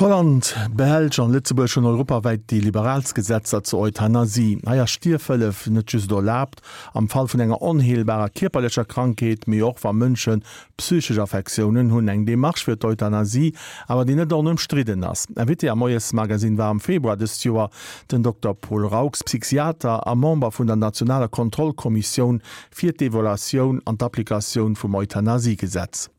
Holland, Belsch an Lëtzebuerg hunn europawäit déi liberaalst Gesetzer zur Euthanasie. Hei ass Stierfhëllef net just erlaabt am Fall vun enger onheelbarer kierperlecher Krankheet, mee och wa Mënsche psychesch Affektiounen hunn. Eng Demarche fir d'Euthanasie awer déi net onëmstridden ass. Invité am Moiesmagazine war am Februar dëst Joer den Dokter Paul Raux, Psychiater a Member vun der nationaler Kontrollkommissioun fir d'Evaluatioun an d'Applikatioun vum Euthanasiegesetz.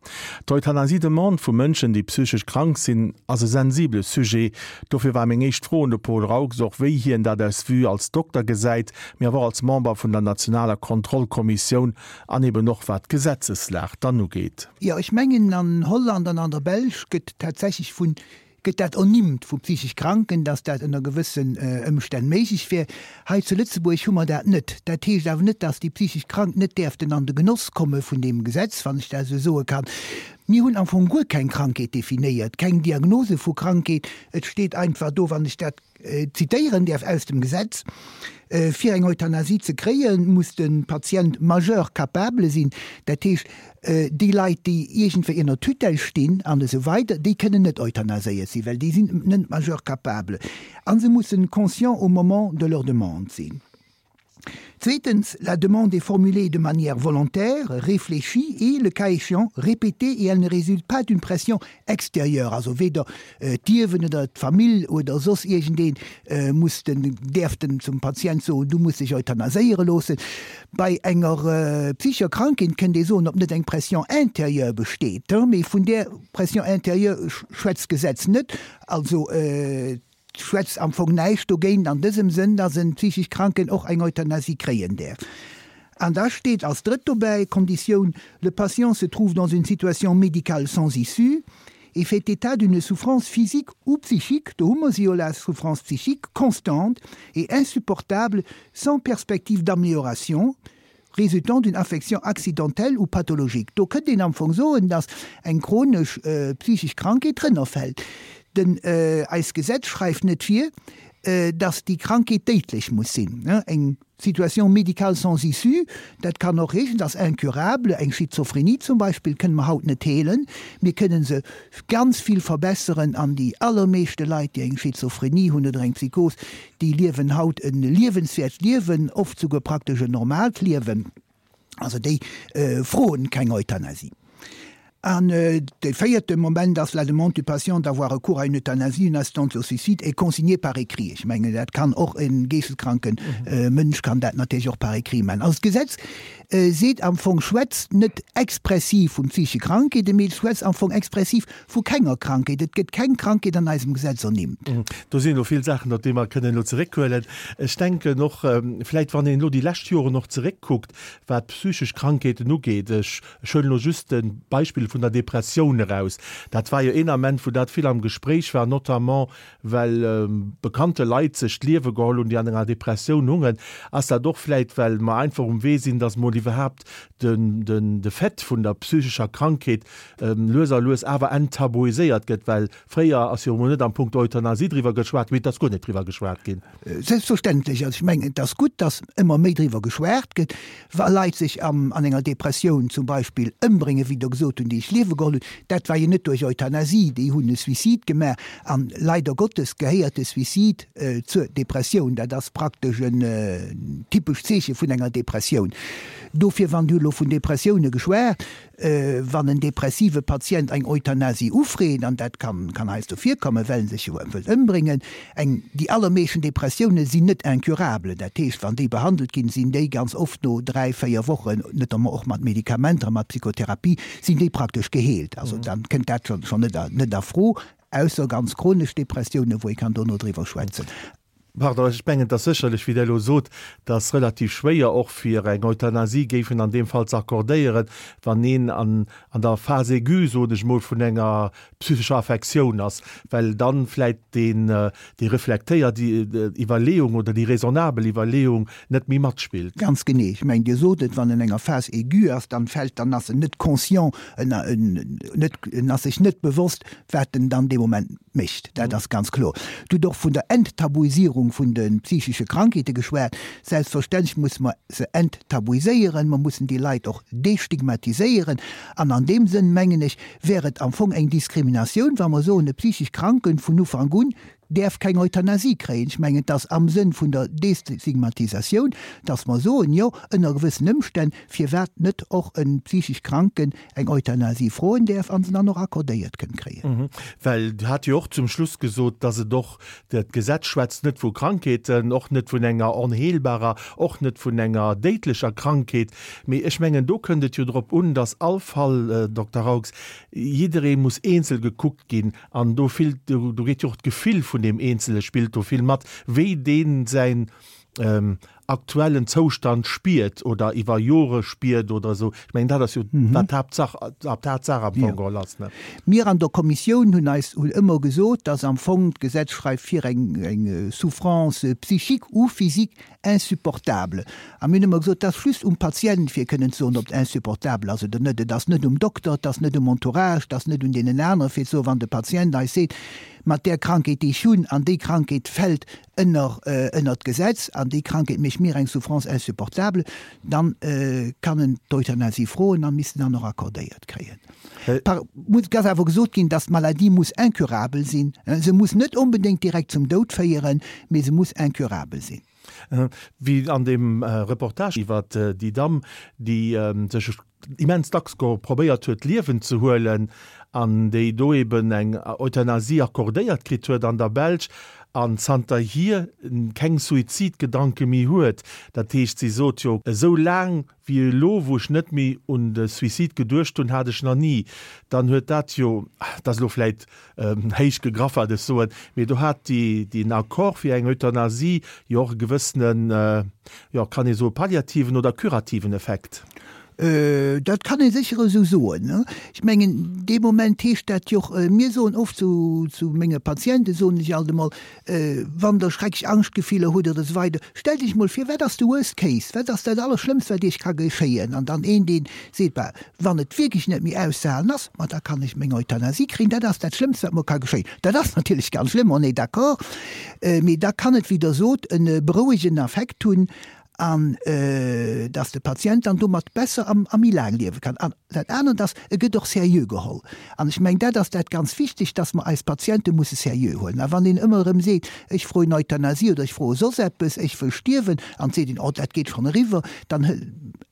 D'Euthanasie-Demande vu Mënschen, déi psychesch krank sinn, ass e sensibele Sujet. Dofir war meng éischt Fro un de Paul Raux och, wéi hien dat aus Vue als Dokter gesäit, mee awer och als Member vun der nationaler Kontrollkommissioun an eben och wat d'Gesetzeslag dann ugeet. Jo, ech mengen an Holland an an der Belsch gëtt tatsächlech vun gëtt dat ernimmt vu psychesch Kranken, dass dat ënner gewëssen Ëmstänn méiglech wär. Hei zu Lëtzebuerg hu mer dat net. Dat heescht awer net, dass déi psychesch Krank net däerften an de Genoss komme vun deem Gesetz, wann ech dat esou soe kann. Mir hunn am Fong guer keng Krankheet definéiert, keng Diagnose vu Krankheet. Et steet einfach do, wann ech dat zitéieren däerf aus dem Gesetz, Fir eng Euthanasie ze kréien, muss de Patient majeur capable sinn. Dat heescht, Déi Leit, déi iergendwéi ënner Tutelle stinn an esou weider, déi kënnen net euthanaséiert sinn, well déi sinn net majeur capable a se mussen conscients au moment de leur demande sinn. Zweetens, la demande est formulée de manière volontaire, réfléchie et, le cas échéant, répétée et elle ne résulte pas d'une pression extérieure, also weder D'Ierwen oder d'Famill oder soss iergendee muss den, däerf den zum Patient soen, du muss dech euthanaséiere loossen. Bei enger psychescher Krankheet kënnt ee soen, ob net eng Pression intérieure besteet, mee vun där Pression intérieure schwätzt d'Gesetz net. Also et schwätzt am Fong näischt dogéint an dësem Sënn, dass en psychesch Kranken och eng Euthanasie kréien däerf. An da steet als drëtt dobäi Konditioun, Le patient se trouve dans une situation médicale sans issue et fait état d'une souffrance physique ou psychique, do hu mer se jo, la souffrance psychique, constante et insupportable sans perspective d'amélioration, résultant d'une affection accidentelle ou pathologique. Do kënnt een am Fong soen, dass eng chronesch psychesch Krankheet drënner fält. Den, eist Gesetz schreift net vir, dass déi Krankheet déidlech muss sinn. Eng Situation médicale sans issue, dat kann och heeschen, dass incurable, eng Schizophrenie zum Beispill kënne mer haut net heelen, mir kënne se ganz vill verbesseren an déi allermeeschte Leit, déi eng Schizophrenie hunn oder eng Psychos, déi liewen haut e liewenswäert Liewen, oft souguer praktesch en normaalt Liewen. Also déi froen keng Euthanasie. An de véierte Moment ass, La demande du patient d'avoir recours à une euthanasie, une assistance au suicide est consignée par écrit. Ech mengen, dat kann och e geeschteskranke Mënsch kann dat natierlech och par écrit maachen. Also d'Gesetz seet am Fong, schwätzt net expressiv vun psychesche Krankheeten, mee et schwätzt am Fong expressiv vu kenger Krankheet. Et gëtt keng Krankheet an eisem Gesetz ernimmt. Do sinn elo vill Saachen, op déi mer kënnen elo zeréckhuelen. Ech denken och vläicht, wann een elo déi lescht Joren och zeréckkuckt, wat psychesch Krankheeten ugeet, ech huelen elo just de Beispill vun der Depressioun eraus, dat war jo een Ament, wou dat vill am Gespréich war, notamment well bekannte Leit sech d'Liewe geholl hunn, déi an enger Depressioun hungen. Ass dat och vläicht, well mer einfach um Wee sinn, datt mol iwwerhaapt de Fait vun der psychescher Krankheet lues a lues awer enttabuiséiert gëtt, well fréier ass jo emol net am Punkt Euthanasie driwwer geschwat ginn, mee et ass guer net driwwer geschwat ginn. Selbstverständlech. Also ech mengen, et ass gutt, datt ëmmer méi driwwer geschwat gëtt. Wa Leit sech an enger Depressioun zum Beispill ëmbréngen, wéi Der gesot hunn, déi sech d'Liewe geholl hunn, dat war jo net duerch Euthanasie, déi hunn e Suicide gemaach. An leider Gottes gehéiert de Suicide zur Depressioun. Dat ass praktesch en typescht Zeeche vun enger Depressioun. Dofir, wann Dir elo vun Depressioune geschwat, Wann en depressive Patient eng Euthanasie ufreet, an dat kann heiansdo virkommen, well en sech jo wëllt ëmbréngen, eng, déi allermeeschten Depressioune sinn net incurable, dat heescht, wann déi behandelt ginn, sinn déi ganz oft no 3, 4 Wochen, notamment och mat Medikamenter a mat Psychotherapie, sinn déi praktesch geheelt. Also dann kënnt dat schonn net a Fro, ausser ganz chronesch Depressiounen, wou ee kann dono driwwer schwätzen. Pardon, ech mengen, et ass sécherlech, wéi Der elo sot, dass relativ schwéier och fir eng Euthanasie géifen an deem Fall ze accordéieren, wann een an an der Phase aiguë, soen ech emol, vun enger psychescher Affektioun ass, well dann vläicht deen, déi reflektéiert Iwwerleeung oder déi raisonnabel Iwwerleeung net méi matspillt. Ganz genee. Ech mengen, Dir sot et, wann en enger Phase aiguë ass, dann fält, dann ass en net conscient, en, en net, en ass sech net bewosst, wat en dann dee Moment mécht. Dat ass ganz kloer. Dir hutt och vun der Enttabuisierung. Stigmatiséierung vun de psychesche Krankheete geschwat. Selbstverständlech musse mer se enttabuiséieren, mer mussen déi Leit och destigmatiséieren. An an deem Sënn, mengen ech, wär et am Fong eng Diskriminatioun, wa mer soen, e psychesch Kranken vun Ufank un däerf keng Euthanasie kréien. Ech mengen, et ass am Sënn vun der Destigmatisatioun, dass mer soen, jo, ënner gewëssen Ëmstänn, firwat net och e psychesch Kranken eng Euthanasie froen däerf a se dann och accordéiert kënnt kréien. Well Dir hat jo och zum Schluss gesot, dass et och, d'Gesetz schwätzt net vu Krankheeten, och net vun enger onheelbarer, och net vun enger déidlecher Krankheet, mee ech mengen, do kënnt et jo drop un, dass all Fall, Dokter Raux, jidderee muss eenzel gekuckt ginn an do vill, do geet jo och d'Gefill vun deem Eenzele spillt do vill mat, wéi dee säin aktuellen Zoustand spiert oder iwwer Jore spiert oder esou. Ech mengen, dat ass jo wat d'Haaptsach, d'Haaptsaach am Fong geholl ass, ne? Mir an der Kommissioun hunn eis, hunn ëmmer gesot, dass am Fong d'Gesetz schreift vir eng, eng Souffrance psychique ou physique insupportable. A mir hunn ëmmer gesot, et ass just um Patient fir kënnen ze soen, ob et insupportabel ass oder net. Et ass net um Dokter, et ass net um Entourage, et ass net un deenen anere fir ze soen, wann de Patient eis seet, mat där Krankheet déi ech hunn an déi Krankheet fält ënner ënner d'Gesetz an déi Krankheet mécht mir eng Souffrance insupportable, dann kann en d'Euthanasie froen an misst en dann och accordéiert kréien. Par muss et ass awer gesot ginn, dass d'Maladie muss incurabel sinn. Se muss net onbedéngt direkt zum Doud féieren, mee se muss incurabel sinn. Wéi an deem Reportage iwwer déi Damm, déi sech immens dacks probéiert huet d'Liewen ze huelen an déi do eben eng Euthanasie accordéiert kritt huet an der Belsch an zanterhier keng Suizidgedanke méi huet. Dat heescht, si sot jo, esou laang wéi elo, wou ech net méi un de Suicide geduecht hunn, hat ech nach ni. Dann huet dat jo, dat ass elo vläit Héich gegraff, wat ech soen, mee do hat deen Accord fir eng Euthanasie jo och e gewëssenen, jo, kann ee soe palliativen oder curativen Effekt. Dat kann ee sécher esou soen. Ech mengen, dee Moment heescht dat jo och, mir soen oft zu menge Patienten, soen ech alt emol, Wann Der schrecklech Angschtgefiller hutt oder esou weider, stellt Iech mol vir, wat ass de Worst Case, wat ass dat Allerschlëmmst, wat Iech ka geschéien? An dann een, dee seet, Bah, wann et wierklech net méi auszehalen ass, ma da kann ech meng Euthanasie kréien, dat ass dat Schlëmmst, wat mer ka geschéien. Dat ass natierlech ganz schlëmm, on est d'accord, mee da kann et, wéi Der sot, e berouegenden Effekt hunn an dass de Patient dann domat besser a méi laang liewe kann. An dat anert ass, e gëtt och seriö geholl. An ech mengen, dat ass dat ganz Wichtegt, dass mer eis Patiente musse seriö huelen. A wann een ëmmer erëm seet, ech froen Euthanasie oder ech froe soss eppes, ech wëll stierwen, an et seet een, oh, dat geet schonn eriwwer, dann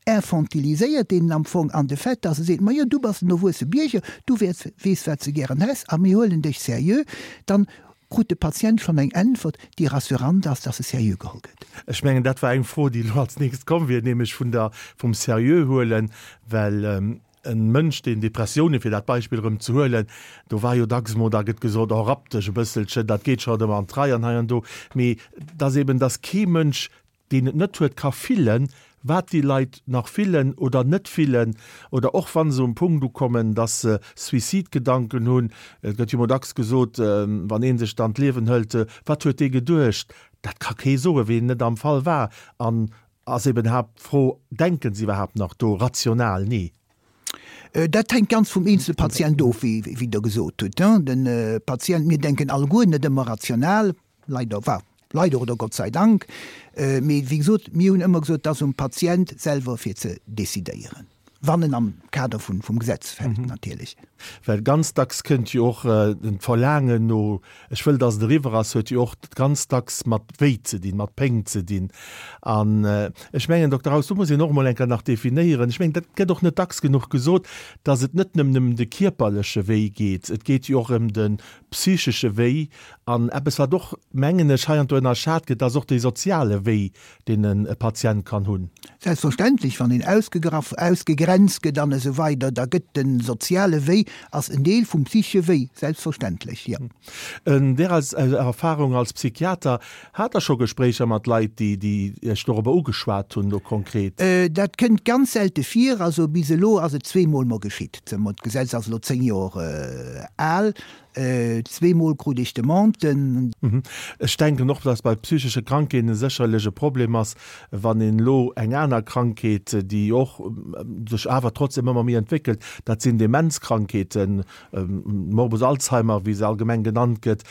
infantiliséiert een en am Fong an de Fait, dass e seet, majo, du bass en erwuesse Bierger, du wäerts, weess, wat s de gären häss a mir huelen dech seriö, dann krut de Patient schonn eng Äntwert, déi rassurant ass, dass e seriö geholl gëtt. Ech mengen, dat war eng Fro, déi elo als nächst komm wier, nämlech vun der, vum seriö huelen, well e Mënsch, deen Depressiounen, fir dat Beispill erëm ze huelen, do war jo dacks emol, da gëtt gesot, oh, rapp dech e bësselchen, dat geet scho erëm an d'Rei an hei an do. Mee dass eben, dass kee Mënsch deen et net huet, ka fillen, wat déi Leit nach fillen oder net fillen, oder och wa se um Punkt ukommen, dass se Suizidgedanken hunn. Et gëtt jo emol dacks gesot, wann ee sech dann d'Liewen hëlt, wat huet dee geduecht? Dat ka kee soen, ween net am Fall war. An ass eben haapt d'Fro, denken se iwwerhaapt nach do rational? Nee. Dat hänkt ganz vum eenzele Patient of, wéi Der gesot hutt. De Patient, mir denken alleguer net ëmmer rational. Leider, enfin, leider oder Gott sei Dank, mee wéi gesot, mir hunn ëmmer gesot, et ass um Patient selwer fir ze decidéieren, wann en am Kader vun, vum Gesetz fält natierlech. Well ganz dacks kënnt jo och d'Verlaangen no, ech wëll, dass et eriwwer ass, huet jo och ganz dacks mat Wéi ze dinn, mat Péng ze dinn. An ech mengen, Dokter Haus, do muss een och emol eng Kéier nach definéieren, ech mengen, dat gëtt och net dacks genuch gesot, dass et net nëmmen ëm de kierperleche Wéi geet, et geet jo och ëm de psychesche Wéi an eppes, wat och, mengen ech, heiansdo ënnerschat gëtt, ass och dee soziale Wéi, deen e Patient kann hunn. Selbstverständlech, wann een ausgegraff, ausgegrenzt gëtt an esou weider, da gëtt de soziale Wéi ass en Deel vum psychesche Wéi, selbstverständlech, jo. An där Erfahrung als Psychiater, Hat Der scho Gespréicher mat Leit, déi, déi Iech dorobber ugeschwat hunn, elo konkret? Dat kënnt ganz selte vir. Also bis elo ass et zweemol mer geschitt. D'Gesetz ass elo 10 Joer al. Zweemol krut ech Demanden. Ech denken och, dass bei psychesche Krankheeten sécherlech e Problem ass, wann een elo eng aner Krankheet, déi och sech awer trotzdem ëmmer méi entwéckelt, dat sinn Demenzkrankheeten, Morbus Alzheimer, wéi se allgemeng genannt gëtt,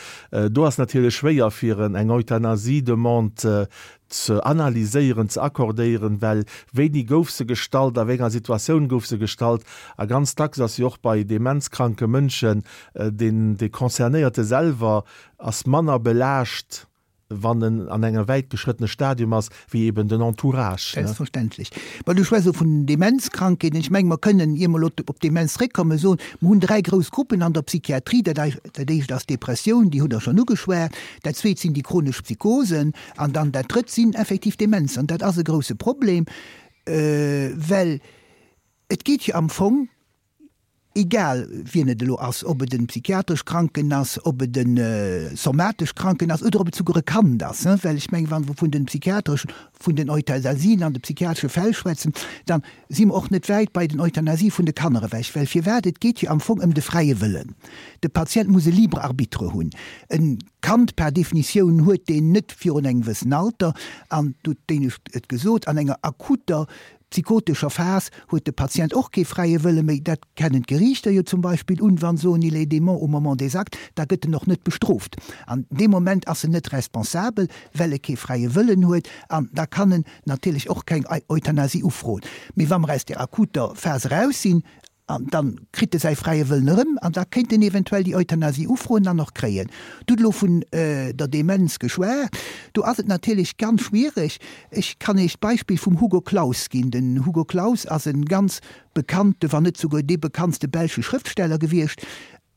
do ass natierlech schwéier fir eng Euthanasie-Demande ze analyséieren, ze accordéieren, well wéini gouf se gestallt, a wéi enger Situatioun gouf se gestallt. A ganz dacks ass jo och bei demenzkranke Mënschen deen dee Concernéierte selwer ass manner belaascht, wann en an engem wäitgeschrëttene Stadium ass, wéi eben den Entourage. Selbstverständlech. Mä du schwätz elo vun den Demenzkrankheeten. Ech menge mer kënnen, ier mer elo op d'Demenz zréckkommen, soen, mer hunn 3 grouss Gruppen an der Psychiatrie. Dat éischt ass d'Depressioun, déi hutt Der schonn ugeschwat. Dat zweet sinn déi chronesch Psychosen. An dann dat Drëtt sinn effektiv Demenzen. An dat ass e grouse Problem, well et geet jo am Fong, egal wien et elo ass, ob et e psychiatresch Kranken ass, ob et e somatesch Kranken ass oder ob et souguer e Kand ass, well ech mengen, wa mer vun de psychiatreschen, vun den Euthanasien an de psychiatresche Fäll schwätzen, da si mer och net wäit bei den Euthanasie vun de Kanner ewech. Well firwat? Et geet jo am Fong ëm de fräie Wëllen. De Patient muss e libre arbitre hunn. E Kand par Definitioun huet deen net virun engem gewëssen Alter, an du hutt d'éinescht et gesot, an enger akuter psychotescher Phas huet de Patient och kee fräie Wëlle méi. Dat kennen d'Geriichter jo zum Beispill un, wa se soen, il est dément au moment des actes, da gëtt en och net bestrooft. An deem Moment ass en net responsabel, well e kee fräie Wëllen huet, an da kann en natierlech och keng Euthanasie ufroen. Mee wa mer aus där akuter Phas eraus sinn, An dann kritt e säi fräie Wëllen erëm an da kéint en eventuell déi Euthanasie ufroen an och kréien. Du hutt elo vun der Demenz geschwat. Do ass et natierlech ganz schwiereg. Ech kann Iech d'Beispill vum Hugo Claus ginn. Den Hugo Claus ass e ganz bekannte, wann net souguer dee bekanntste belsche Schrëftsteller gewiescht.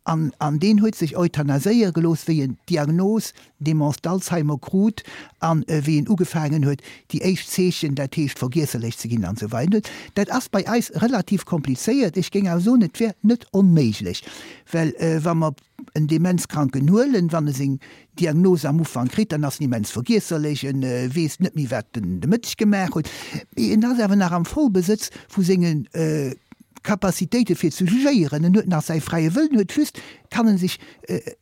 An an deen huet sech euthanaséiere gelooss, wéi en d'Diagnos Démence d'Alzheimer krut an wéi en ugefaangen huet, déi éischt Zeechen, dat heescht vergiesserlech ze ginn an esou weider. Dat ass bei eis relativ komplizéiert. Ech géing awer soen, et wär net onméiglech, well wa mer en Demenzkranken huelen, wann e seng Diagnos am Ufank kritt, dann ass en immens vergiesserlech, en weess net méi, wat en de Mëtteg gemaach huet, mee en ass awer nach am Vollbesëtz vu senge Capacitéite fir ze jugéieren, en huet nach säi fräie Wëllen, huet just, kann en sech,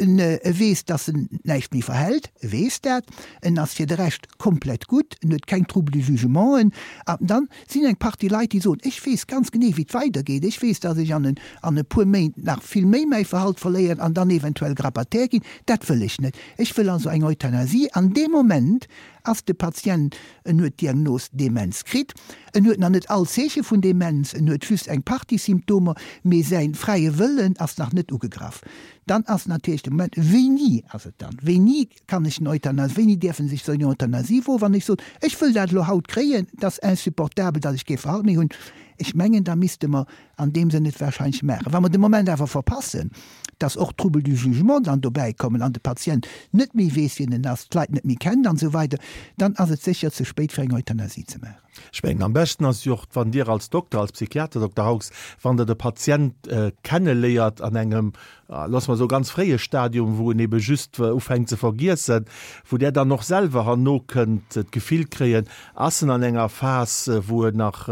en weess, dass en näischt méi verhält, e weess dat, en ass fir de Rescht komplett gutt, en huet keng Troubles du jugementen. An dann sinn eng Partie Leit, déi soen, ech weess ganz genee, wéi et weidergeet, ech weess, dass ech an an e puer Méint nach vill méi mäi Verhalt verléieren an dann eventuell Grabataire ginn, dat wëll ech net. Ech wëll also eng Euthanasie. An deem Moment ass de Patient, en huet d'Diagnos Demenz kritt, en huet nach net all Zeeche vun Demenz, en huet just eng Partie Symptomer, mee säi fräie Wëllen ass nach net ugegraff. Dann ass natierlech de Moment, wéini ass et dann, wéini kann ech en Euthanasie, wéini däerf en sech sou eng Euthanasie woen, wann ech soen, ech wëll dat elo haut kréien, et ass insupportabel, datt ech kee Verhalt méi hunn. Ech mengen, da misste mer an deem Sënn et wahrscheinlech maachen. Wa mer de Moment awer verpassen, dass och Troubles du jugement dann dobäi kommen an de Patient net méi weess, wien en ass, d'Leit net méi kennt an esou weider, dann ass et sécher ze spéit fir eng Euthanasie ze maachen. Ech mengen, am beschten ass jo och, wann Dir als Dokter, als Psychiater, Dokter Haux, wann Der de Patient kenneléiert an engem, loosse mer soen, ganz fréie Stadium, wou en ebe just ufänkt ze vergiessen, wou Der dann och selwer herno kënnt d'Gefill kréien, ass en an enger Phas, wou en nach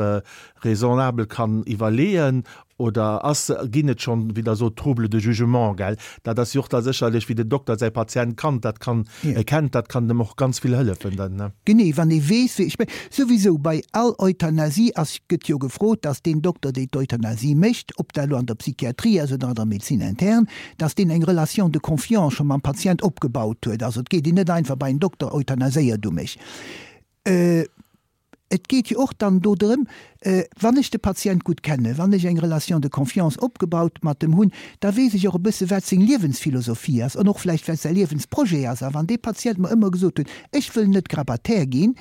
raisonnabel kann iwwerleeën oder ass, ginn et schonn, wéi Der sot, Troubles de jugement, gell? Dat ass jo och da sécherlech, wéi den Dokter säi Patient kannt, dat kann, kennt, dat kann dem och ganz vill hëllefen dann, ne? Genee, wann ee weess, wéi, ech mengen, souwisou bei all Euthanasie ass, gëtt jo gefrot, dass deen Dokter, deen d'Euthanasie mécht, ob dat elo an der Psychiatrie ass oder an der Médecine interne, dass deen eng Relation de confiance scho mam Patient opgebaut huet. Also et geet een net einfach bei en Dokter, Euthanaséier du mech. Et geet jo och dann do drëm, wann ech de Patient gutt kennen, wann ech eng Relation de confiance opgebaut mat em hunn, da weess ech och e bësse wat seng Liewensphilosophie ass an och vläicht wat säi Liewensprojet ass. A wann dee Patient mer ëmmer gesot huet, ech wëll net Grabataire ginn,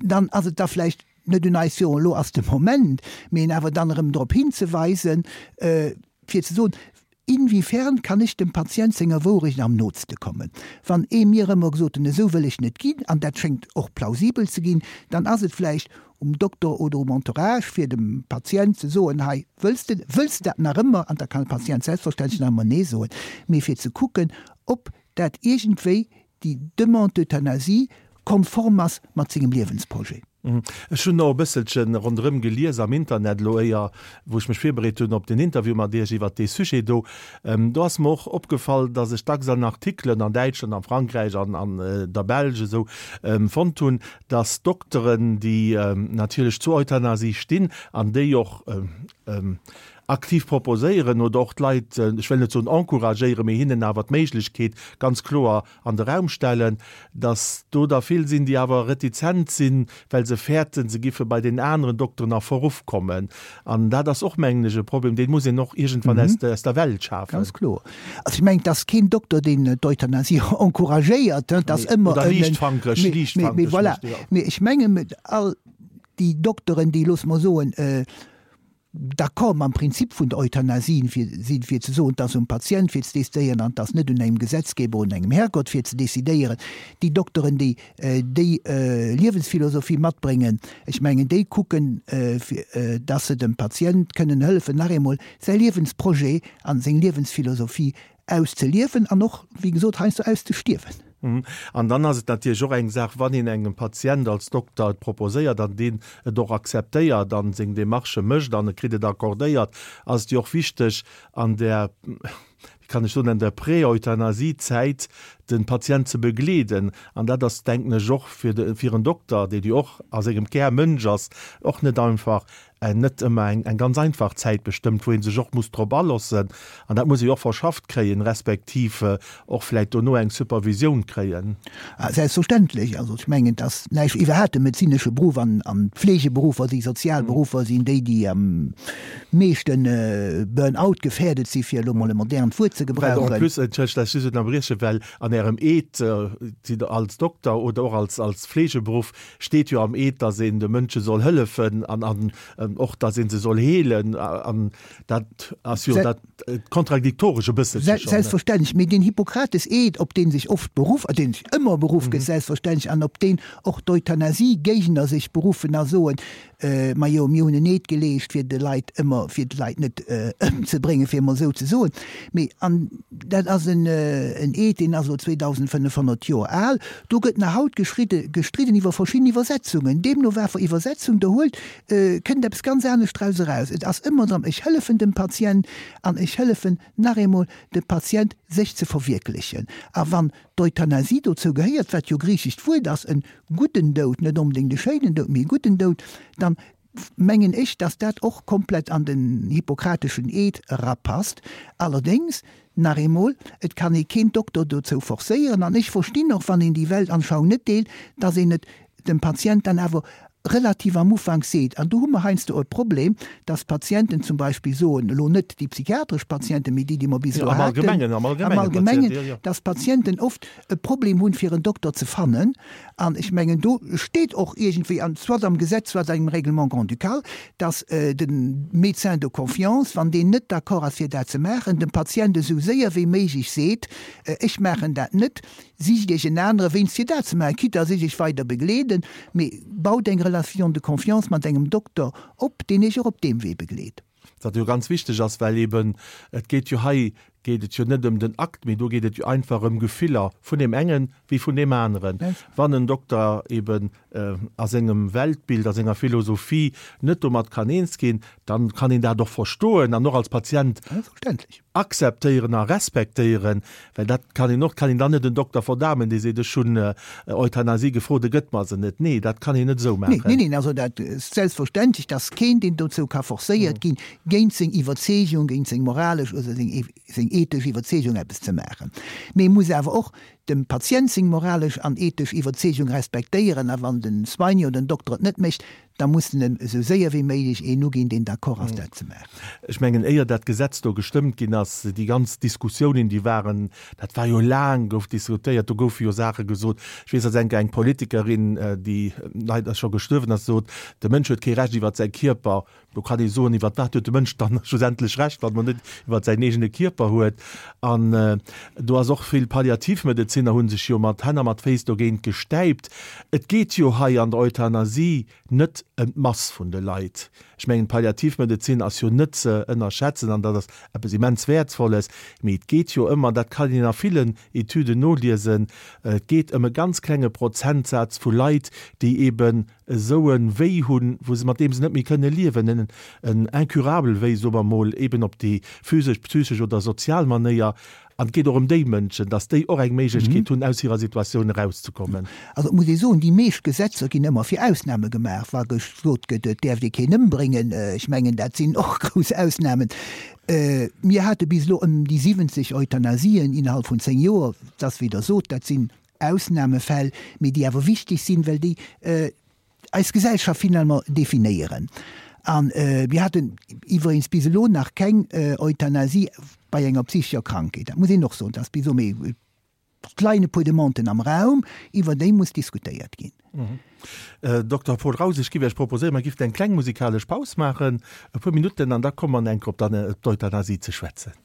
dann ass et da vläicht net un eis, jo elo ass de Moment, mee en awer dann erëm drop hinzeweisen, fir ze soen, Inwiefern kann ech dem Patient senger Wourecht am nootste kommen? Wann ee mir ëmmer gesot hunn, esou wëll ech net ginn, an dat schéngt och plausibel ze ginn, dann ass et vläicht um Dokter oder um Entourage, fir dem Patient ze soen, hei, wëlls de, wëlls de dat nach ëmmer? An da kann de Patient selbstverständlech nach ëmmer Nee soen, mee fir ze kucken, ob dat iergendwéi déi Demande d'euthanasie konform ass mat sengem Liewensprojet. Ech hunn och e bësselche ronderëm gelies am Internet elo éier wou ech mech virbereet hunn op den Interview mat Iech iwwert dee Sujet do. Do ass mer och opgefall, datt ech dacks an Artikelen an Däitschland, an Frankräich an an der Belsch esou fonnt hunn, datt Dokteren, déi natierlech zur Euthanasie stinn an déi och aktiv proposéieren oder och d'Leit, ech wëll net soen encouragéieren, mee hinnen awer d'Méiglechkeet ganz kloer an de Raum stellen, datt do der vill sinn, déi awer retizent sinn, well se fäerten, se giffe bei den aneren Dokteren a Verruff kommen. An dat ass och, mengen ech, e Problem, dee muss een och iergendwann aus der Welt schafen. Ganz kloer. Also ech mengen, et ass keen Dokter, deen d'Euthanasie encouragéiert. Et ass ëmmer en. Oder liichtfankeg, liichtfankeg. Mee voilà. Mee ech mengen, all déi Dokteren, déi, loosse mer soen, d'accord mam Prinzip vun der Euthanasie sinn, fir ze soen, et ass um Patient fir ze decidéieren an et ass net un engem Gesetzgeber, un engem Herrgott fir ze decidéieren. Déi Dokteren, déi déi Liewensphilosophie matbréngen, ech mengen, déi kucken, fir dass se dem Patient kënnen hëllefen, nach eemol säi Liewensprojet a seng Liewensphilosophie auszeliewen an och, wéi gesot, heiansdo auszestierwen. An dann ass et natierlech och eng Saach, wann een engem Patient als Dokter et proposéiert an deen et och akzeptéiert an seng Demarchë mécht an e kritt et accordéiert, ass et jo och wichteg an där, wéi kann ech soen, an der Prä-Euthanasie-Zäit de Patient ze begleeden. An dat ass, denken ech, och fir de, fir en Dokter, deen jo och a sengem Kär Mënsch ass, och net einfach. Net ëmmer eng ganz einfach Zäit bestëmmt, wou ee sech och muss drop alossen. An dat muss ee jo och verschafft kréien, respektiv och vläicht dono eng Supervisioun kréien. Selbstverständlech. Also ech mengen, et ass näischt, iwwerhaapt de medezinesche Beruff an d'Fleegeberuffer, déi sozial Beruffer sinn déi, déi am meeschte Burn-out gefährdet sinn, fir elo mol e modernt Wuert ze gebrauchen. Well en plus, entschëllegt, dass ech just ënnerbrieche, well an Ärem Eed, Sidd Der als Dokter oder och als Fleegeberuff, Steet jo am Eed, dass een de Mënsche soll hëllefen an an och, dass ee se soll heelen. An dat ass jo dat kontradiktoresch e bësselche schonn. Selbstverständlech. Mee deen Hippokrates-Eed, op dee sech oft beruff, deen sech ëmmer beruff gëtt, selbstverständlech, an op deen och d'Euthanasie-Géigner sech beruffen a soen, Majo, mir hunn en Eed geleescht, fir de Leit ëmmer, fir d'Leit net ëmzebréngen, fir emol esou ze soen. Mee, an dat ass en Eed, deen ass elo 2.500 Joer al, do gëtt nach haut geschridde, gestridden iwwer verschidden Iwwersetzungen. Deemno wat fir Iwwersetzung Der huelt, kënnt eppes ganz anescht draus eraus. Et ass ëmmer drëm, ech hëllefen dem Patient an ech hëllefen nach eemol dem Patient, sech ze verwierklechen. A wann d'Euthanasie dozou gehéiert, wat jo griichescht Wuert ass, en gudden Doud, net onbedéngt e schéinen Doud, mee e gudden Doud, dann mengen ech, dass dat och komplett an den hippokrateschen Eed erapasst. Allerdéngs, nach eemol, et kann ee keen Dokter dozou forcéieren, an ech verstinn och, wann een déi Weltanschauung net deelt, dass een et dem Patient dann awer relativ am Ufank seet, an do hu mer heiansdo e Problem, dass d'Patienten zum Beispill soen, elo net déi psychiatresch Patienten, mee déi, déi mer bis elo haten, am Allgemengen, dass d'Patienten oft e Problem hunn, fir en Dokter ze fannen. An ech mengen, do steet och iergendwéi, an soit am Gesetz, soit engem Règlement grand-ducal, dass de Médecin de confiance, wann deen net d'accord ass, fir dat ze maachen, dem Patient esou séier wéi méiglech seet, Ech maachen dat net, Sicht Iech en anere wéinst fir dat ze maachen, quitte à sech Iech weider begleeden, mee baut eng Relation de confiance mat engem Dokter op, deen Iech och op deem Wee begleet. Wat jo ganz wichteg ass, well eben et geet jo hei geet et jo net ëm den Akt, mee do geet et jo einfach ëm Gefiller vun deem engen wéi vun deem aneren. Wann en Dokter eben a sengem Weltbild, a senger Philosophie net domat kann eens ginn, dann kann een dat och verstoen an och als Patient Akzeptéieren a respektéieren, well dat kann een och, kann een dann net en Dokter verdamen, dee seet, ech hunn Euthanasie gefrot, e gëtt mer se net. Nee, dat kann een net esou maachen. Nee, neen, also dat ass selbstverständlech, dass keen, deen dozou ka forcéiert ginn, géint seng Iwwerzeegung, géint seng moralesch oder seng ethesch Iwwerzeegung eppes ze maachen. Mee e muss awer och dem Patient seng moralesch an ethesch Iwwerzeegung respektéieren a wann den Soignant oder den Dokter et net mécht, Da muss en em esou séier wéi méiglech een uginn, deen d'accord ass, dat ze maachen. Ech mengen, éier dat Gesetz do gestëmmt ginn ass, déi ganz Diskussiounen, déi waren, dat war jo laang, gouf diskutéiert, do goufe jo Saache gesot. Ech weess, datt eng eng Politikerin, déi leider scho gestuerwen ass, sot, de Mënsch huet kee Recht iwwert säi Kierper. Do kann ee soen, iwwert wat huet de Mënsch dann schlussendlech Recht, wann en net iwwert säin eegene Kierper huet. An do ass och vill Palliativmedezinner hu sech jo mat Hänn a mat Féiss dogéint gestäipt. Et geet jo hei an der Euthanasie net ëm d'Mass vun de Leit. Ech mengen, d'Palliativmedezin ass jo net ze ënnerschätzen an dat ass eppes immens Wäertvolles. Mee et geet jo ëmmer, dat kann een a villen Etüden noliesen, et geet ëm e ganz klenge Prozentsaz vu Leit, déi eeben esou e Wéi hunn, wou se, mat deem se net méi kënne liewen, en en incurable Wéi, soe mer emol, eeben op déi physesch, psychesch oder sozial Manéier. An et geet och ëm déi Mënschen, dass déi och eng Méiglechkeet hunn, aus hirer Situatioun erauszekommen. Also et muss ee soen, déi meescht Gesetzer ginn ëmmer fir Ausname gemaach. Wa gesot gëtt, et däerft ee keen ëmbréngen, ech mengen, dat sinn och grouss Ausnamen. Mir hate bis elo ëm déi 70 Euthanasien innerhalb vun 10 Joer. Et ass, wéi Der sot, dat sinn Ausnamefäll, mee déi awer wichteg sinn, well déi eis Gesellschaft finalement definéieren. A mir haten iwweregens bis elo nach keng Euthanasie bei enger psychescher Krankheet. Dat muss een och soen, dat ass bis elo, mee et leien e puer Demanden am Raum, iwwer déi muss diskutéiert ginn. Dokter Paul Raus, ech géif Iech proposéieren, mer géifen eng kleng musikalesch Paus maachen, e puer Minutten, an da komme mer enk op d'Euthanasie ze schwätzen.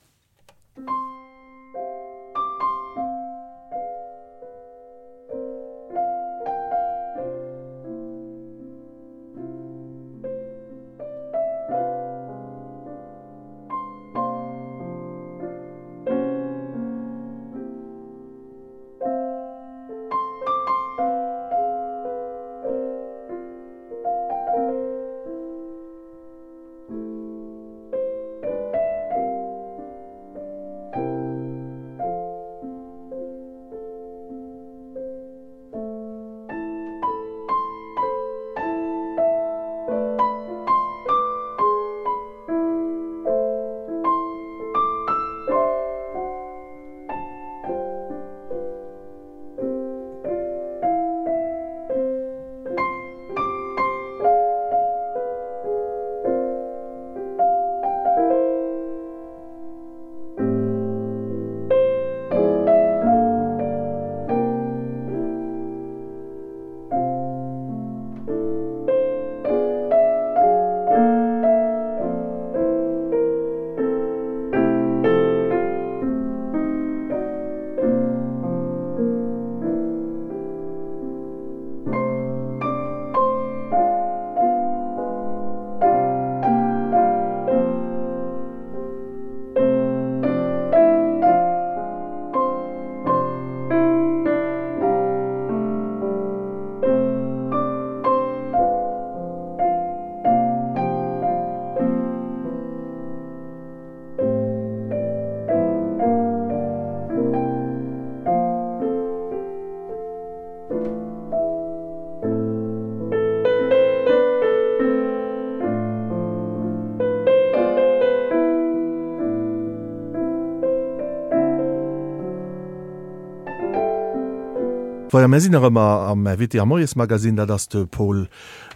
Voilà, mir sinn nach ëmmer am Invité am Moiesmagazine. Dat ass de Paul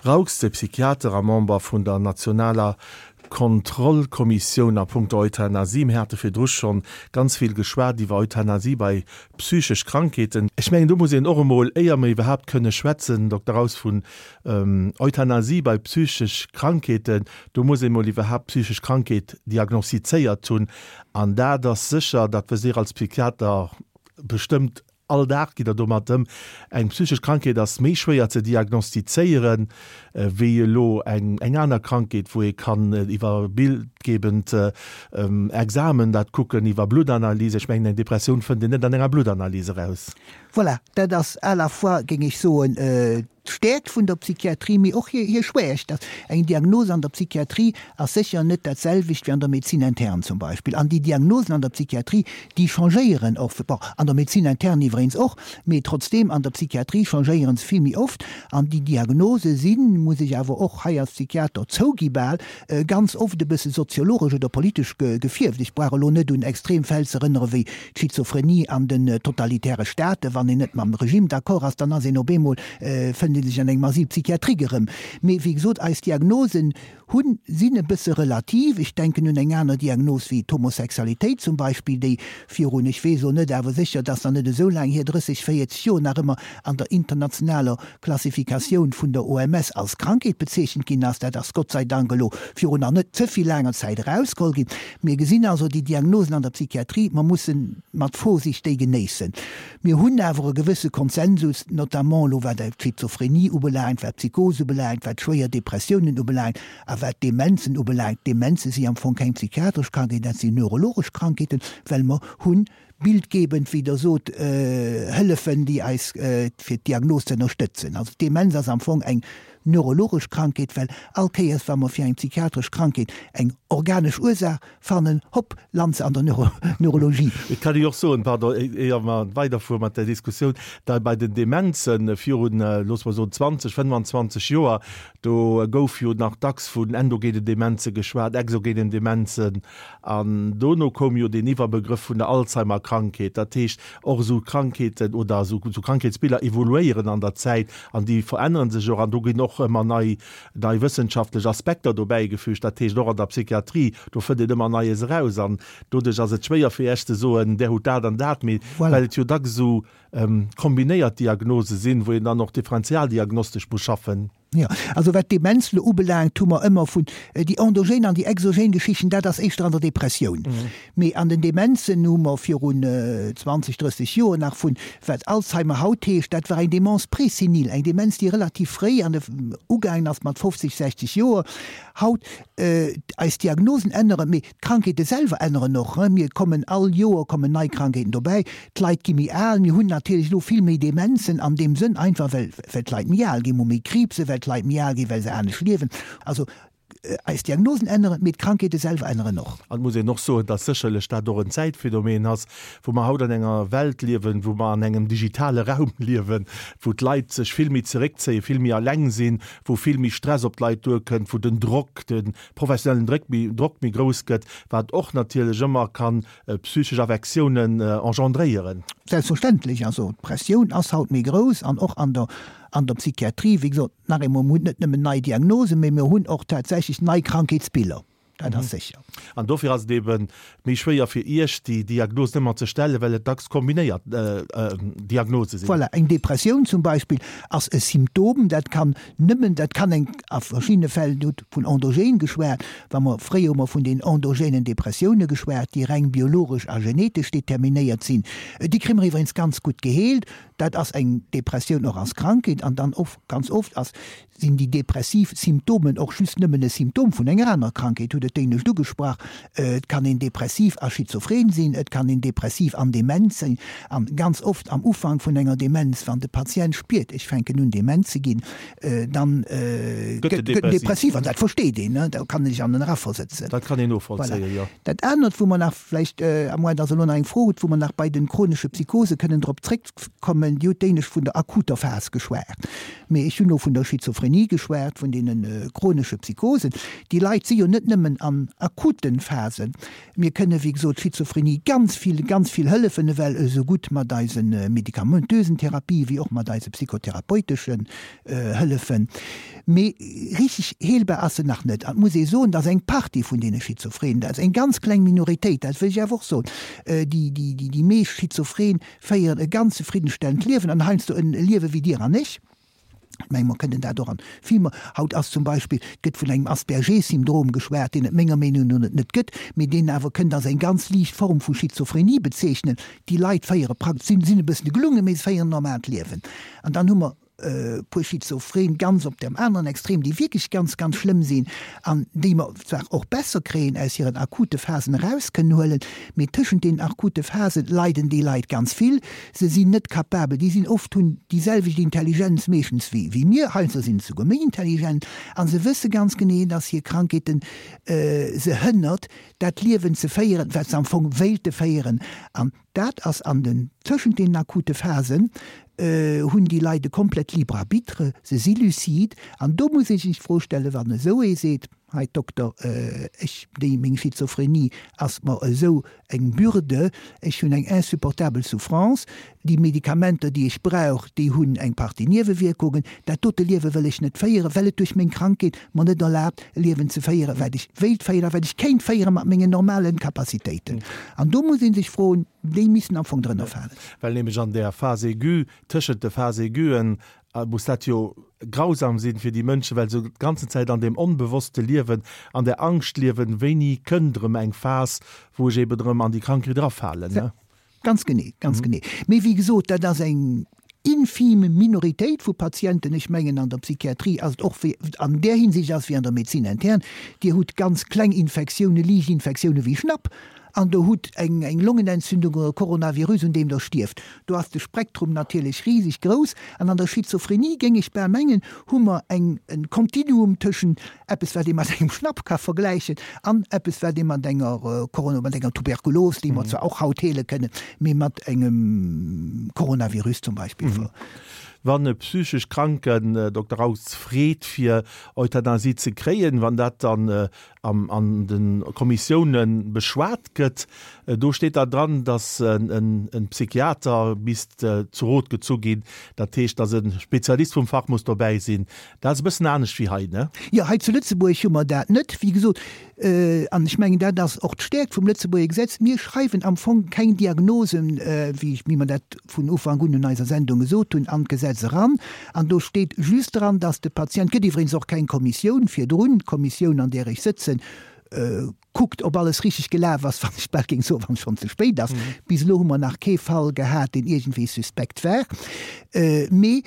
Raux, de Psychiater a Member vun der nationaler Kontrollkommissioun a punkto Euthanasie. Mir hate virdru schonn ganz vill geschwat iwwer Euthanasie bei psychesch Krankheeten. Ech mengen, do muss een och emol, éier mer iwwerhaapt kënne schwätzen, Dokter Raus, vun Euthanasie bei psychesch Krankheeten, do muss ee mol iwwerhaapt d'psychesch Krankheet diagnostizéiert hunn. An dat ass sécher, dat wësst Dir als Psychiater bestëmmt, All Dag gitt Der domat ëm. Eng psychesch Krankheet ass méi schwéier ze diagnostizéieren, wéi elo eng aner Krankheet, wou ee kann iwwer bildgebend Examen dat kucken, iwwer Bluttanalyse. Ech mengen, eng Depressioun fënnt een net an enger Bluttanalyse eraus. Voilà, dat ass à la fois, géing ech soen, d'Stäerkt vun der Psychiatrie, mee och hir Schwächt. Eng Diagnos an der Psychiatrie ass sécher net dat selwecht wéi an der Médecine interne zum Beispill. An déi Diagnosen an der Psychiatrie, déi changéieren och, bon, an der Médecine interne iwweregens och, mee trotzdeem an der Psychiatrie changéiere se vill méi oft. An déi Diagnose sinn, muss ech awer och hei als Psychiater zougi bal, ganz oft e bësse soziologesch oder politesch gefierft. Ech brauch elo net un extrem Fäll ze erënnere wéi d'Schizophrenie an den totalitäre Staaten, wann een net mam Regime d'accord ass, dann ass een op eemol, fënnt ee sech an engem Asile psychiatrique erëm. Mee wéi gesot, eis Diagnosen hunn, sinn e bësse relativ. Ech denken un eng aner Diagnos wéi d'Homosexualitéit zum Beispill, déi virun, ech weess elo net, awer sécher, et ass nach net esou laang hier, 30, 40 Joer nach ëmmer an der internationaler Klassifikatioun vun der OMS als Krankheet bezeechent ginn ass. Dat ass Gott sei Dank elo virun nach net ze vill laanger. Zäit erausgeholl ginn. Mir gesinn also déi Diagnosen an der Psychiatrie, mer musse mat Vorsicht déi genéissen. Mir hunn awer e gewësse Konsensus, notamment elo wat d'Schizophrenie ubelaangt, wat d'Psychose ubelaangt, wat schwéier Depressiounen ubelaangt a wat d'Demenzen ubelaangt. D'Demenze si am Fong keng psychiatresch Krankheeten, dat sinn neurologesch Krankheeten, well mer hunn bildgebend, wéi Der sot, Hëllefen, déi eis fir d'Diagnos ze ënnerstëtzen. Also d'Demenz ass am Fong eng neurologesch Krankheet, well all Kéiers, wa mer fir eng psychiatresch Krankheet eng organesch Ursaach fannen, hopp, lant se an der Neurologie. Et kann ee jo och soen, pardon, éier mer weiderfuere mat där Diskussioun, da bei den Demenzen virun, loosse mer soen, 20, 25 Joer, do gouf jo nach dacks vun endogenen Demenze geschwat, exogenen Demenzen, An dono koum jo deen Iwwerbegrëff vun der Alzheimer-Krankheet. Dat heescht, och esou Krankheeten oder esou Krankheetsbiller evoluéieren an der Zäit an déi verännere sech och an do ginn och ëmmer nei, nei wëssenschaftlech Aspekter dobäigefügt. Dat heescht, och an der Psychiatrie, do fënnt een ëmmer Neies eraus an doduerch ass et schwéier fir Iech ze soen, där hutt dat an dat, mee well et jo dacks esou kombinéiert Diagnose sinn, wou een dann och differentialdiagnostesch muss schaffen. Jo, also wat d'Demenz elo ubelaangt, hu mer ëmmer vun déi endogen an déi exogen Geschichten, dat ass éischter an der Depressioun. Mee an den Demenzen hu mer virun 20, 30 Joer nach vun, wat Alzheimer haut heescht, dat war eng Démence présénile, eng Demenz, déi relativ fréi an de ugaangen ass mat 50, 60 Joer. Haut, eis Diagnosen änneren, mee D'Krankheete selwer änneren och. Mir kommen all Joer kommen nei Krankheeten dobäi. D'Leit gi méi al. Mir hunn natierlech elo vill méi Demenzen an deem Sënn, einfach well well d'Leit méi al ginn. Mir hu méi Kriibse well d'Leit méi al ginn, well se anescht liewen. Also eis Diagnosen änneren, mee d'Krankheete selwer änneren och. An et muss een och soen, dass sécherlech dat och en Zäitphänomen ass, wou mer haut an enger Welt liewen, wou mer an engem digitale Raum liewen, wou d'Leit sech vill méi zeréckzéien, vill méi eleng sinn, wou vill méi Stress op d'Leit duerkënnt, wou den Drock, de professionellen Dréck méi, Drock méi grouss gëtt, wat och natierlech ëmmer kann psychesch Affektiounen engendréieren. Selbstverständlech, also d'Pressioun ass haut méi grouss an och an der, an der Psychiatrie, wéi gesot, nach eemol, mir hunn net nëmmen nei Diagnosen, mee mir hunn och tatsächlech nei Krankheetsbiller, dat ass sécher. An dofir ass et eebe méi schwéier fir Iech, déi Diagnosen ëmmer ze stellen, well et dacks kombinéiert Diagnose sinn. Voilà, eng Depressioun zum Beispill ass e Symptom, dat kann Nëmmen, dat kann eng, a verschiddene Fäll, Dir hutt vun endogen geschwat, wa mer, fréier hu mer vun den endogenen Depressioune geschwat, déi reng biologesch a genetesch determinéiert sinn, déi kréie mer iwwregens ganz gutt geheelt. Dat ass eng Depressioun och als Krankheet an dann of, ganz oft ass, sinn déi depressiv Symptomen och just nëmmen e Symptom vun enger anerer Krankheet, hutt et d'éinescht ugesprach. Et kann een depressiv a schizophren sinn, et kann een depressiv an dement sinn. An ganz oft am Ufank vun enger Demenz, wann de Patient spiert, ech fänken un dement ze ginn, dann gëtt en depressiv. An dat versteet een, da kann een sech an en eraversetzen. Dat kann een novollzéien, jo. Dat anert, wou mer nach vläicht, à moins dass Der elo nach eng Fro hutt, wou mer nach bei de chronesche Psychose kënnen drop zréckkommen, Dir hutt d'éinescht vun der akuter Phas geschwat, mee ech hunn elo vun der Schizophrenie geschwat, vun deene chronesche Psychosen. Déi Leit si jo net nëmmen an akute Phasen. Mir kënne wéi gesot Schizophrenie ganz vill, ganz vill hëllefen, ewell esou gutt mat eise medikamentösen Therapië wéi och mat eise psychotherapeuteschen Hëllefen. Mee richteg heelbar ass se nach net. An et muss ee soen, dass eng Partie vun deene Schizophrenen, dat ass eng ganz kleng Minoritéit, dat wëll ech awer och soen, déi, déi, déi meescht Schizophren féieren e ganz zefriddenstellend Liewen an heiansdo en Liewe wéi Dir an ech. Ech mengen, mer kënnen dat och an Filmer. Haut ass zum Beispill, et gëtt vun engem Asperger-Syndrom geschwat, deen et menger Meenung no net net gëtt, mee deen awer kënnt als eng ganz liicht Form vu Schizophrenie bezeechnen. Déi Leit féiere praktesch, sinn, sinn e bëssen gelungen, mee se féieren en normaalt Liewen. An dann hu mer e puer Schizophren ganz op dem aneren Extrem, déi wierklech ganz, ganz schlëmm sinn an déi mer zwar och besser kréien, aus hiren akute Phasen eraus kënnen huelen, mee tëschent deenen akute Phasen leiden déi Leit ganz vill. Se sinn net capabel, déi sinn oft, hunn déi selwecht Intelligenz meeschtens wéi wéi mir, heiansdo sinn se souguer méi intelligent, a se wësse ganz genee, dass hir Krankheeten se hënnert, dat Liewen ze féieren, wat se am Fong wéilte féieren. An dat ass an den, tëschent deenen akute Phasen hunn déi Leit e komplett libre arbitre, se si lucide. An do muss ee sech d'Fro stellen, wann esou ee seet, Hei Dokter, ech, déi, meng Schizophrenie ass mer esou eng Bürde, ech hunn eng insupportabel Souffrance, déi Medikamenter, déi ech brauch, déi hunn eng Partie Niewewierkungen, dat dote Liewe wëll ech net féieren, well et duerch meng Krankheet mer net erlaabt, e Liewen ze féieren, wat ech wéilt féieren a wat ech kéint féiere mat mengen normale Capacitéiten. An do muss ee sech froen, déi missten am Fong drënner falen. Well nämlech an där Phase aiguë, tëschent de Phase aiguen. Muss dat jo grausam sinn fir déi Mënschen, well se d'ganzen Zäit an deem Onbewosste liewen, an der Angscht liewen, wéini kënnt erëm eng Phas, wou ech eben erëm an déi Krankheet erafalen, ne? Ganz genee, ganz genee. Mee wéi gesot, dat ass eng infime Minoritéit vu Patienten. Ech mengen, an der Psychiatrie ass et och wéi, an där Hinsicht ass et wéi an der Médecine interne, Dir hutt ganz kleng Infektiounen, liicht Infektiounen wéi Schnapp, An der hutt eng eng Longenentzündung oder e Coronavirus, un deem der stierft. Do ass de Spektrum natierlech riseg grouss. An an der Schizophrenie, géing ech bal mengen, hu mer eng en Kontinuum tëschent eppes, wat ee mat engem Schnapp ka vergläichen, an eppes, wat ee mat enger Corona, mat enger Tuberkulos, déi mer zwar och haut heele kënnen, mee mat engem Coronavirus zum Beispill ver. Wann e psychesch Kranken, Dokter Raus, freet fir Euthanasie ze kréien, wann dat dann an de Kommissioune beschwat gëtt, do steet da dran, datt e Psychiater misst zu Rot gezu ginn, dat heescht, datt e Spezialist vum Fach muss dobäi sinn. Dat ass e bëssen anescht wéi hei, ne? Jo, hei zu Lëtzebuerg hu mer dat net, wéi gesot. An ech mengen, dat ass och d'Stäerkt vum Lëtzebuerger Gesetz, Mir schreiwen am Fong keng Diagnosen, wéi mer dat vun Ufank un un eiser Sendung gesot hunn, an d'Gesetz eran. An do steet just dran, dass de Patient, et gëtt iwwregens och keng Kommissioun virdrun, d'Kommissioun, an där ech sëtzen, kuckt, ob alles richtig gelaf ass, wann ech bal géing soen, wann et schonn ze spéit ass. Bis elo hu mer nach kee Fall gehat, deen iergendwéi suspekt war. Mee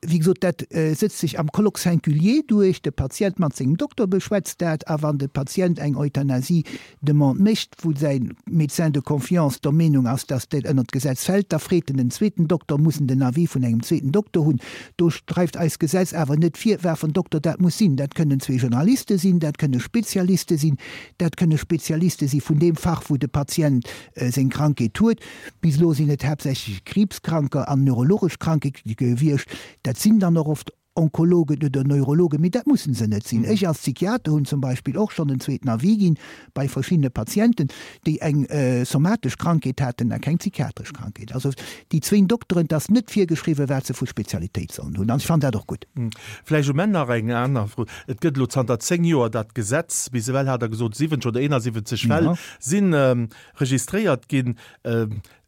wéi gesot, dat sëtzt sech am Colloque singulier duerch, de Patient mat sengem Dokter beschwätzt dat, a wann de Patient eng Euthanasie-Demande mécht, wou säi Médecin de confiance der Meenung ass, dass dat ënnert d'Gesetz fält, da freet en en zweeten Dokter, muss en den Avis vun engem zweeten Dokter hunn. Do schreift eist Gesetz awer net vir, wat fir en Dokter dat muss sinn. Dat kënnen zwee Generaliste sinn, dat kënne Spezialiste sinn, dat kënne Spezialiste si vun deem Fach, wou de Patient seng Krankheet huet. Bis elo sinn et haaptsächlech Kriibskranker an neurologesch Kranke gewiescht. Dat sinn dann och oft Onkologen oder Neurologen, mee dat mussen se net sinn. Ech als Psychiater hunn zum Beispill och schonn en zweeten Avis ginn bei verschiddene Patienten, déi eng somatesch Krankheet haten a keng psychiatresch Krankheet. Also déi zwéin Dokteren, et ass net virgeschriwwen, wat se vu Spezialitéit sollen hunn an ech fannen dat och gutt. Vläicht um Enn nach eng aner Fro. Et gëtt elo zanter 10 Joer dat Gesetz, bis ewell hat Der gesot 70 oder 71 Fäll sinn registréiert ginn.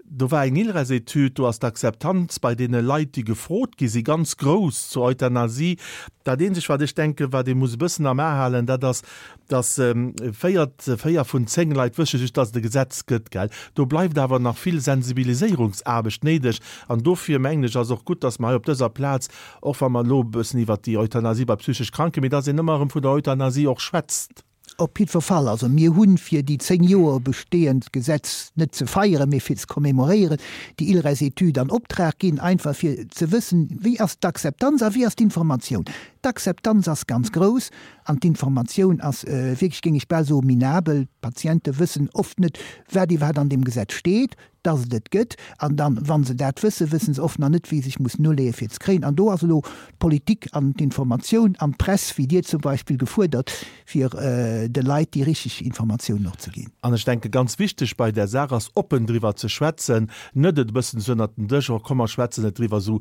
Do war eng ILRES-Etüd, do ass d'Akzeptanz bei deene Leit, déi gefrot gi si ganz grouss zur Euthanasie. Dat eenzegt, wat ech denken, wat ee muss e bëssen am A halen, dat ass, datt véier, véier vun 10 Leit wësse just, datt et e Gesetz gëtt, gell. Do bleift awer nach vill Sensibiliséierungsaarbecht néideg. An dofir, mengen ech, ass och gutt, datt mer hei op dëser Plaz, och wa mer elo e bëssen iwwert déi Euthanasie bei psychesch Kranken, mee datt een ëmmer erëm vun der Euthanasie och schwätzt. Op jiddwer Fall, also mir hunn, fir déi 10 Joer bestehend Gesetz net ze feieren, mee fir ze commémoréieren, déi ILRES-Etüd an Optrag ginn, einfach fir ze wëssen, wéi ass d'Akzeptanz a wéi ass d'Informatioun. D'Akzeptanz ass ganz grouss an d'Informatioun ass wierklech, géing ech bal soen, minabel. D'Patiente wëssen oft net, wat iwwerhaapt an deem Gesetz steet. dass et et gëtt, an dann, wa se dat wëssen, wësse se oft nach net, wéi se sech mussen uleeën, fir et ze kréien. An do ass elo d'Politik an d'Informatioun an d'Press, wéi Dir zum Beispill, gefuerdert, fir de Leit déi richteg Informatiounen och ze ginn. An ech denke ganz wichteg bei där Saach ass, oppen driwwer ze schwätzen, net et e bëssen esou ënnert den Dësch, oh komm mer schwätzen net driwwer, esou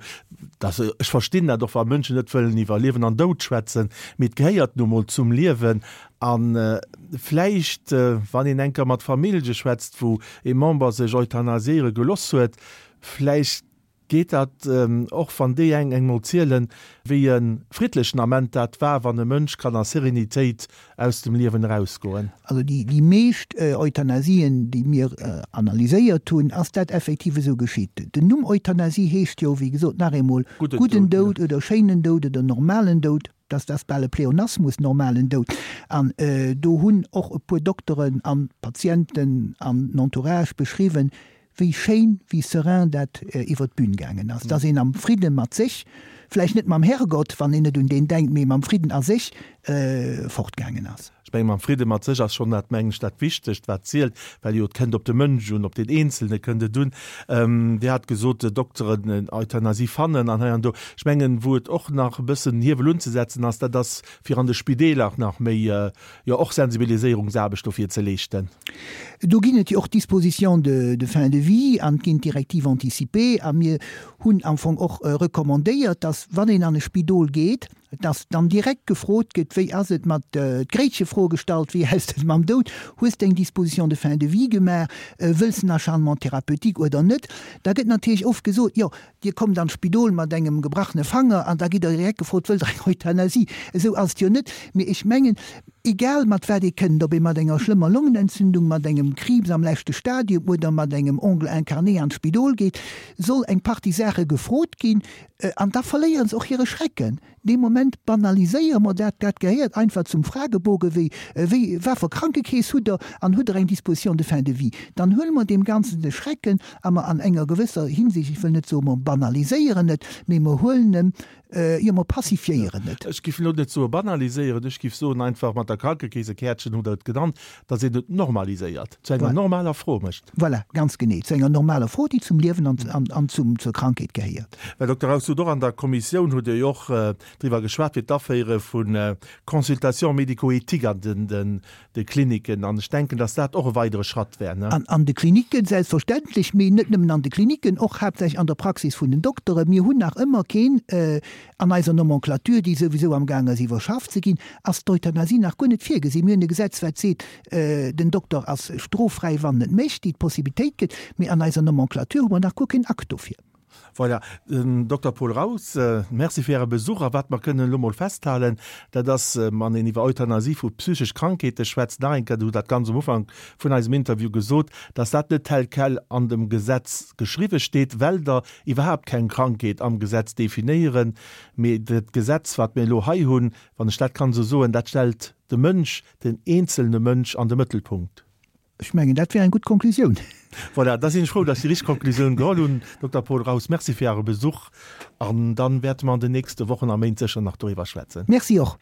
dass, ech verstinn dat och, wa Mënschen net wëllen iwwer Liewen an Doud schwätzen, mee et gehéiert nu mol zum Liewen. A vläicht, wann een eng Kéier mat Famillje schwätzt, wou ee Member sech euthanasiéiere geloss huet, vläicht geet dat och, wann déi eng eng mol zielen, wéi e friddlechen Ament dat war, wann e Mënsch kann a Serenitéit aus dem Liewen erausgoen. Also déi meescht Euthanasien, déi mir analyséiert hunn, ass dat effektiv esou geschitt. Den Numm Euthanasie heescht jo, wéi gesot, nach eemol gudden Doud oder schéinen Doud oder normalen Doud. Dass dat bal e Pleonasmus, normalen Doud. An do hunn och e puer Dokteren an Patienten an den Entourage beschriwwen, wéi schéin, wéi serein dat iwwer d'Bün gaangen ass. Dass een am Fridde mat sech, vläicht net mam Herrgott, wann een net un deen denkt, mee mam Fridden a sech fortgaangen ass. Ech mengen, mam Fridde mat sech ass schonn dat, mengen ech, dat Wichtegst, wat zielt, well jo et kënnt op de Mënsch un, op deen Eenzelne kënnt et un. Dir hat gesot, Dokteren, Euthanasie fannen an hei an do. Ech mengen, wou et och nach e bëssen Hiewel unzesetzen ass, dat ass, fir an de Spideeler nach méi, jo och Sensibiliséierungsaarbecht dofir ze leeschten. Do ginn et jo och Dispositions de fin de vie an et ginn d'Directives anticipées a mir hunn am Fong och recommandéiert, dass, wann een an e Spidol geet,. Dass dann direkt gefrot gëtt, wéi ass et mat, d'Gréitchefro gestallt, wéi ass et mam Doud, hues de eng Disposition de fin de vie gemaach, wëlls de en Acharnement thérapeutique oder net? Da gëtt natierlech oft gesot, jo, Dir kommt an d'Spidol mat engem gebrachene Fanger an da gitt Der direkt gefrot, wëllt Der eng Euthanasie? Esou ass et jo net. Mee ech mengen, egal mat wat ee kënnt, ob ee mat enger schlëmmer Longenentzündung, mat engem Kriibs am leschte Stadium oder mat engem Ongle incarné an d'Spidol geet, soll eng Partie Saache gefrot ginn an da verléiere se och hire Schrecken. Dee Moment banaliséiere mer dat. Dat gehéiert einfach zum Fragebogen, wéi, wéi, wat fir Krankekeess hutt Der an hutt Der eng Disposition de fin de vie? Dann huele mer deem Ganzen de Schrecken a mer an enger gewësser Hinsicht, ech wëll net soen, mer banaliséieren et, mee mer huelen em, jo, mer pacifiéieren et. Ech géif elo net soe banaliséieren, ech géif soen einfach mat der Krankekeesekäertchen hutt Der et genannt, datt een et normaliséiert, zu enger normaler Fro mécht. Voilà, ganz genee, zu enger normaler Fro, déi zum Liewen an zum, zur Krankheet gehéiert. Här Dokter Raus, hutt och an der Kommissioun hutt Dir jo och driwwer geschwat, fir d'Aféiere vu Consultations médico-éthiques an de Kliniken. An ech denken, datt dat och e weidere Schratt wär, ne? An de Kliniken selbstverständlech, mee net nëmmen an de Kliniken, och haaptsächlech an der Praxis vun den Dokteren. Mir hunn nach ëmmer keen, an eiser Nomenclature, déi souwisou amgaang ass iwwerschafft ze ginn, ass d'Euthanasie nach guer net virgesinn. Mir hunn e Gesetz, wat seet, Den Dokter ass stroffräi, wann en et mécht, déi d'Possibilitéit gëtt, mee an eiser Nomenclature hu mer nach guer keen Akt dofir. Voilà, den Dokter Paul Raus, Merci fir Äre Besuch. A wat mer kënnen elo mol festhalen, dat ass, wann een iwwer Euthanasie vu psychesch Krankheete schwätzt, nach eng Kéier, Dir hutt dat ganz um Ufank vun eisem Interview gesot, dass dat net tel quel an dem Gesetz geschriwwe steet, well Der iwwerhaapt keng Krankheet am Gesetz definéieren, mee dat Gesetz, wat mir elo hei hunn, wann ech dat kann esou soen, dat stellt de Mënsch, den eenzelne Mënsch an de Mëttelpunkt. Ech mengen, dat wär eng gutt Konklusioun. Voilà, da sinn ech frou, dass ech déi richteg Konklusioun geholl hunn. Dokter Paul Raus, Merci fir Äre Besuch an dann wäerte mer an den nächste Wochen a Méint sécher nach doriwwer schwätzen. Merci och.